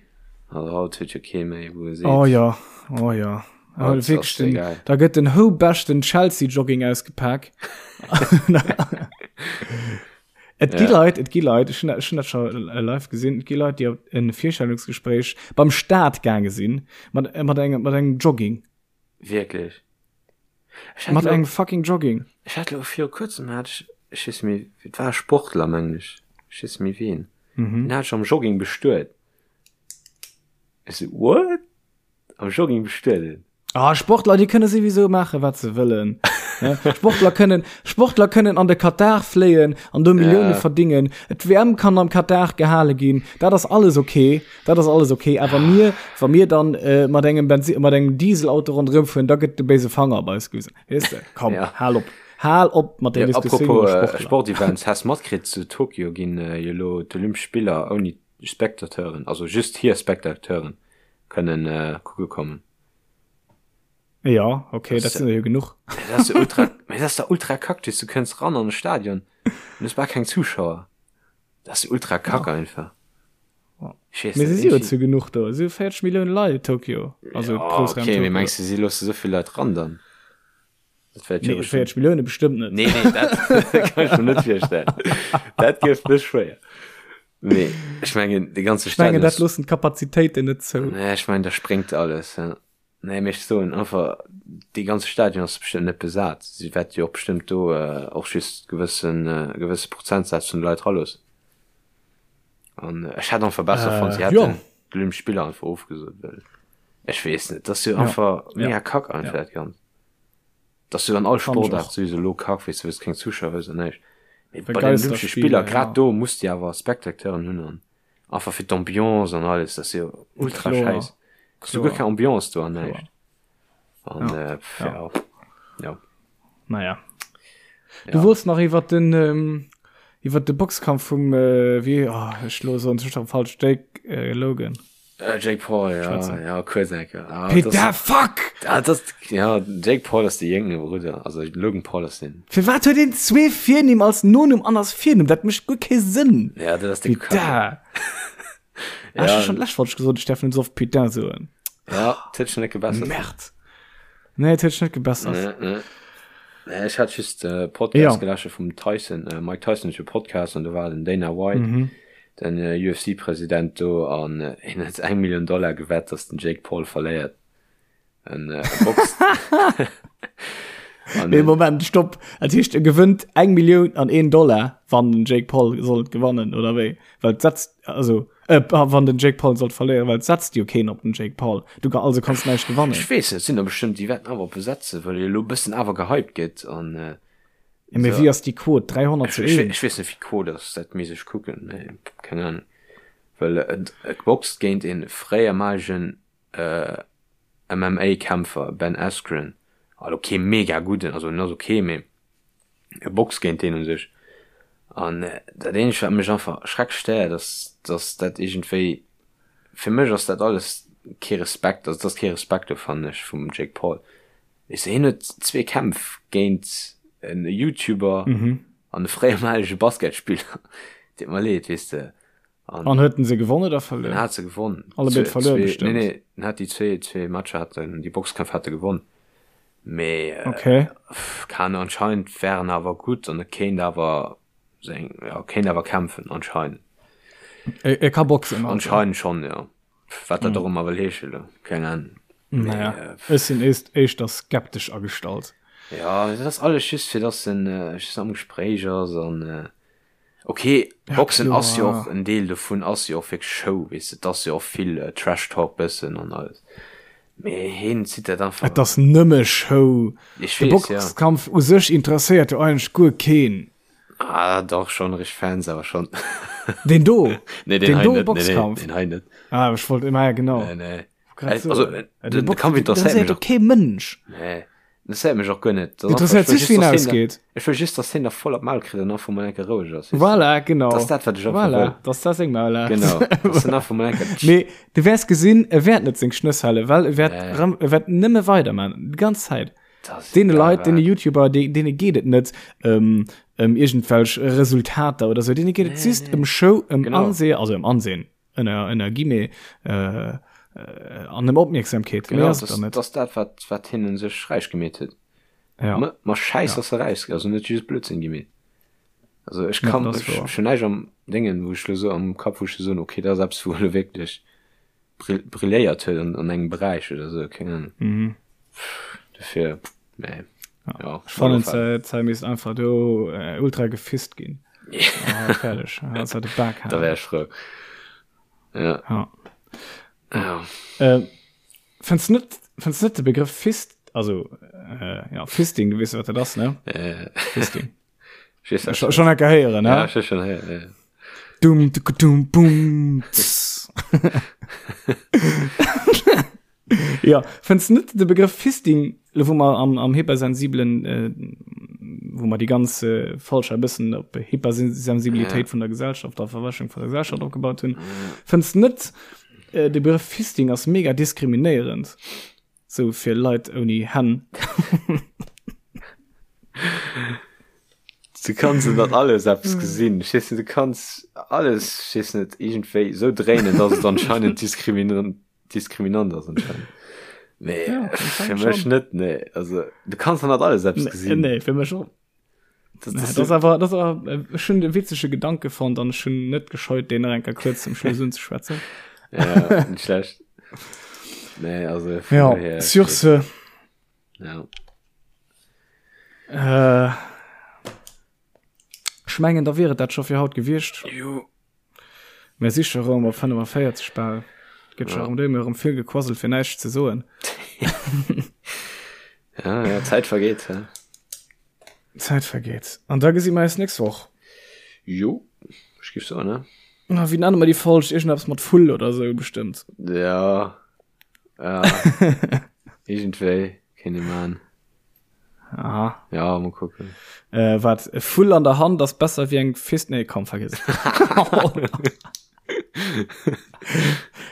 Also haut huet jo kee méi wou e seet. Oh ja, oh ja. Oh, Haut ass wierklech den, egal. da gëtt den houbeschten Chelsea Jogging ausgepak. Et gi Ja. Leit, et gi Leit, ech hunn dat, ech hunn dat scho live gesinn, et gi Leit, déi op en Virstellungsgespréich beim Staat gaange sinn, mat, mat engem, mat engem Jogging. Wierklech? Ech hat Mat lo, engem fucking Jogging. ech hat lo viru kuerzem hat ech, ech weess méi, et war e Sportler mengen ech, ech weess méi ween, Mhm. deen hat ech am Jogging bestuet. Ech sou, what? Am Jogging bestueden? Ah, Sportler, déi kënne souwisou maachen, wat se wëllen. Sportler kënnen, Sportler kënnen an de Katar fléien an do Millioune Ja. verdingen. D'WM kann am Katar gehale ginn. Dat ass alles okay. Dat ass alles okay. Awer mir, wa mir dann äh, mat engem Benzi mat engem Dieselauto ronderëm fueren, da gëtt de béise Fanger op eis gewisen. Weess de? Komm, Ja. hal op. Hal op mat där Ja, Diskussioun apropos iwwer äh, Sportler. Sportevents, has matkritt, zu Tokio ginn äh, jo lo d'Olympesch Spiller ouni Spectateuren, also just hir Spectateuren kënnen äh, kucke kommen. Ja, okay, dat sinn der jo genuch. Dat ass ultra, mee dat ass da ultra kack, du kënns ran an de Stadion an du hues bal keng Zuschauer. Dat ass ultra kack einfach. Ich weess Mee se si jo zu genuch do, si 40 Millioune Leit Tokio, also ja, Groussraum okay, mee Tokio. mengs du si loosse souvill Leit ran dann? Dat wäert jo Nee, bestimmt. 40 Millioune bestëmmt net. Nee, nee, dat kann ech mir net virstellen. Dat gëff mech schwéier. Mee ech mengen, de ganze Ech mengen, Stadion dat ass. loossen d'Kapazitéiten net zou. Nee, ech mengen, da spréngt alles. Ja. Nee, mee ech soen einfach, dee ganze Stadion ass bestëmmt net besat. Si wäerte jo och bestëmmt do och just gewëssen, gewësse Prozentsaz vun de Leit raloossen. An ech hätt einfach besser fonnt, si hätten d'Olympesch Spiller einfach ofgesot, well ech weess net, dat ass jo einfach mega kack einfach dat Ganzt. Dat ass jo an all Sportaart souwisou elo kack, weess de, wëlls keng Zuschauer hues an näischt. Mee bei den Olympesche Spiller, grad do muss de awer Spectateuren hunn an einfach fir d'Ambiance an alles, dat ass jo ultra schäiss. Ass jo guer keng Ambiance do an näischt. An ja, ja. Naja. Du wollts nach iwwer den ähm, iwwer de Boxkampf vum äh, wie oh, ech lo so schon falsch Jake äh, Logan. Äh, Jake Paul ja, ja kurz enke. Ah, Peter das, fuck ah, das, ja, Jake Paul ass de jéngere Brudder also Logan Paul ass den. Firwat huet een zwee Virnimm als Nonumm an als Virnumm? Dat mécht guer kee Sënn. Ja, dat ass de Peter. Ah, ja. schon lech falsch gesot, ich darf net so oft Putain soen. Ja, dat huet sech net gebessert. Merd. Nee, et huet sech net gebessert. Nee, nee. Nee, ech hat just äh, Podcast ja. gelasche vum Tyson, äh, Mike Tyson huet jo Podcast an do war den Dana White, mhm. den äh, UFC-President do an äh, hien huet eng Million Dollar gewett, dass den Jake Paul verléiert. En äh, boxt. An, nee, Moment, stopp. Dat heescht, e gewënnt eng Millioun an een Dollar, wann den Jake Paul sollt gewannen, oder wéi? Well et setzt, also, äh, wann den Jake Paul sollt verléieren, well et setzt jo keen op den Jake Paul. Du ka, also kanns näischt gewannen. Ech weess net, sinn der bestëmmt, déi wäerten awer op e setzen, well e elo e bëssen awer gehypt gëtt an, äh, Ja, mee wéi ass déi Quote? 300 zu 1? Ech weess net, wéi d'Quote ass, dat misst ech kucken, mee keng Ahnung. Well et, et boxt géint e fréiermalegen, äh, MMA-Kämpfer, Ben Askren, also kee mega gudden, also en ass ok, mee e boxt géint deen u sech. An dat eenzegt wat mech einfach schrecklech stéiert ass, dass dat iergendwéi, fir mech ass dat alles kee Respekt, also et ass kee Respekt do fannen ech vum Jake Paul. Weess de, hien huet zwee Kämpf géint en Youtuber an e fréiermalege Basketspiller, deet mer leed, weess de. An, an huet en se gewonnen oder verluer? En hat se gewonnen. Allebéid verluer bestimmt. Nee, nee, en hat déi zwee, zwee Matcher hat en, déi Boxkämpf hat e gewonnen. Mee, äh, okay. Keine anscheinend wären awer gutt an e kéint awer seng, ja, kéint awer kämpfen anscheinend. E, e ka boxen. Also. Anscheinend schon, ja. Wat dat mm. och ëmmer wëll heesche lo, keng Ahnung. Naja, äh, ech sinn éischter skeptesch agestallt. Ja, dat ass alles just fir dass en äh, just am Gespréich ass an äh, Ok, Boxen ass jo och en Deel dovun ass jo och wierklech Show, weess de, et ass jo och vill Trash Talk bëssen an alles, mee heen zitt dat einfach. Et ass nëmme Show. Ech De weess, ja. Boxkampf u sech interesséiert jo eigentlech guer keen. Ah, dach schon, richteg Fans awer schon. Deen do? Nee, deen Deen hei do net, nee, nee, Boxkampf? deen hei net. Ah, ech wollt, ma ja, genau. Nee, nee. Grad so. Also, Äh, den, de de Kampf interesséiert mech och. kee Mënsch. Nee, interesséiert mech och guer net. Das Interesséiert sech, wéi en ausgeet. Ech wëll just, dass hien da voll op d'Maul kritt an einfach mol eng Kéier roueg ass. Voilà, genau. Das ist dat, wat ech einfach voilà, wëll. Dass dat seng Maul hat. Genau. Dass hien einfach mol eng Kéier. Mee du wäers gesinn, e wäert net seng Schnëss halen, well e wäert, Nee. rëm, e wäert nëmme weiderman, déi ganz Zäit. Das Deene egal Leit, deene wat. YouTuber, déi, deene geet et net ëm, ëm iergendwelch Resultater oder sou, deene geet et Nee, just nee. ëm Show, ëm Genau. Ansehen, also ëm Ansehen. Ënner ënner Guillemets äh, äh, an ëm Opmierksamkeet. Genau, das, das dat wat wat hinnen sech räich gemeet huet. Ja. Ma, ma Schäiss ja. ass se räich, also net just Blödsinn gemeet. Also ech kann ja, ech, schon näischt am Dingen, wou ech lo so am Kapp wou ech so okay, dat ass eppes wou lo wierklech brilléiert huet an, an engem Beräich oder so, keng Ahnung. Mhm. Dofir, nee. Ja. Ja, ich fand es misst einfach do äh, ultra gefist ginn. Ah, fertig. Ah, da wär ich frou. Ja. Ja. Ja. Äh, findest net, findest net de Begriff Fist, also äh, ja, Fisting, du weißt, wat dat ass, ne? Äh. Fisting. Schon, schon enke héieren, ne? Ja, schon héieren, ja. Dum, dum, dum, bum, tss. Ja, fënns net de Begrëff Fisting, lo wou mer am, am hypersensibelen, äh, wou mer déi ganz äh, Folg e bëssen op Hypersensibilitéit ja. vun der Gesellschaft a Verwäschung vun der Gesellschaft opgebaut hunn, ja. fënns net äh, de Begrëff Fisting ass mega diskriminéierend, sou fir Leit ouni Hänn. Du kanns dat alles eppes gesinn. Ech weess net, du kanns alles, ech weess net, iergendwéi sou dréinen, dass et anscheinend diskriminierend diskriminant ass anscheinend. Nee, Ja, fir anscheinend mech schon. net, nee. Also, du kanns an dat alles eppes Nee, gesinn. nee, fir mech och. Das, Nee, das, das awer das awer äh, ech hunn de witzege Gedanke fonnt an ech hunn net gescheut, deen nach eng Kéier kuerz zum Schluss unzeschwätzen. ja, nicht schlecht. Nee, also, von Ja, daher, sur ce, Ja. äh, ech mengen, da wier et dat scho fir haut gewiescht. Jo. Mir si scho rëm op 45 bal. Gëtt scho rëm duer, rëm vill gequasselt fir näischt ze soen. Ja, ja, Zäit vergeet. Hä? Zäit vergeet. An da gesi mer eis nächst Woch. Jo, ech géif soen, ne? Na, wéi nenne mer déi Folg? Iergendeppes mat Vull oder sou bestëmmt. Ja. Ja. Iergendwéi kéint ee man. Aha. Ja, mal kucken. Äh, wat e Vull an der Hand ass besser wéi eng Fist. Nee, komm, vergiss.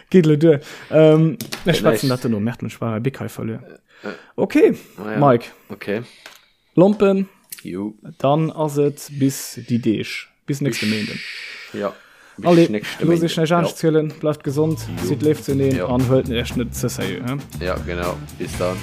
Geet lo duer. Ähm, ech schwätzen dat duerno. Merkt mech war Big hei verluer. Okay, Ah, ja. Mike. Okay. Lompen. Jo. Dann ass et bis déi Deeg. Bis nächste Méinden. Ja. Allez, looss iech näischt anescht zielen. Bleift gesond, sidd léif zueneen an huelt iech net ze sérieux. Ja, genau. Bis dann.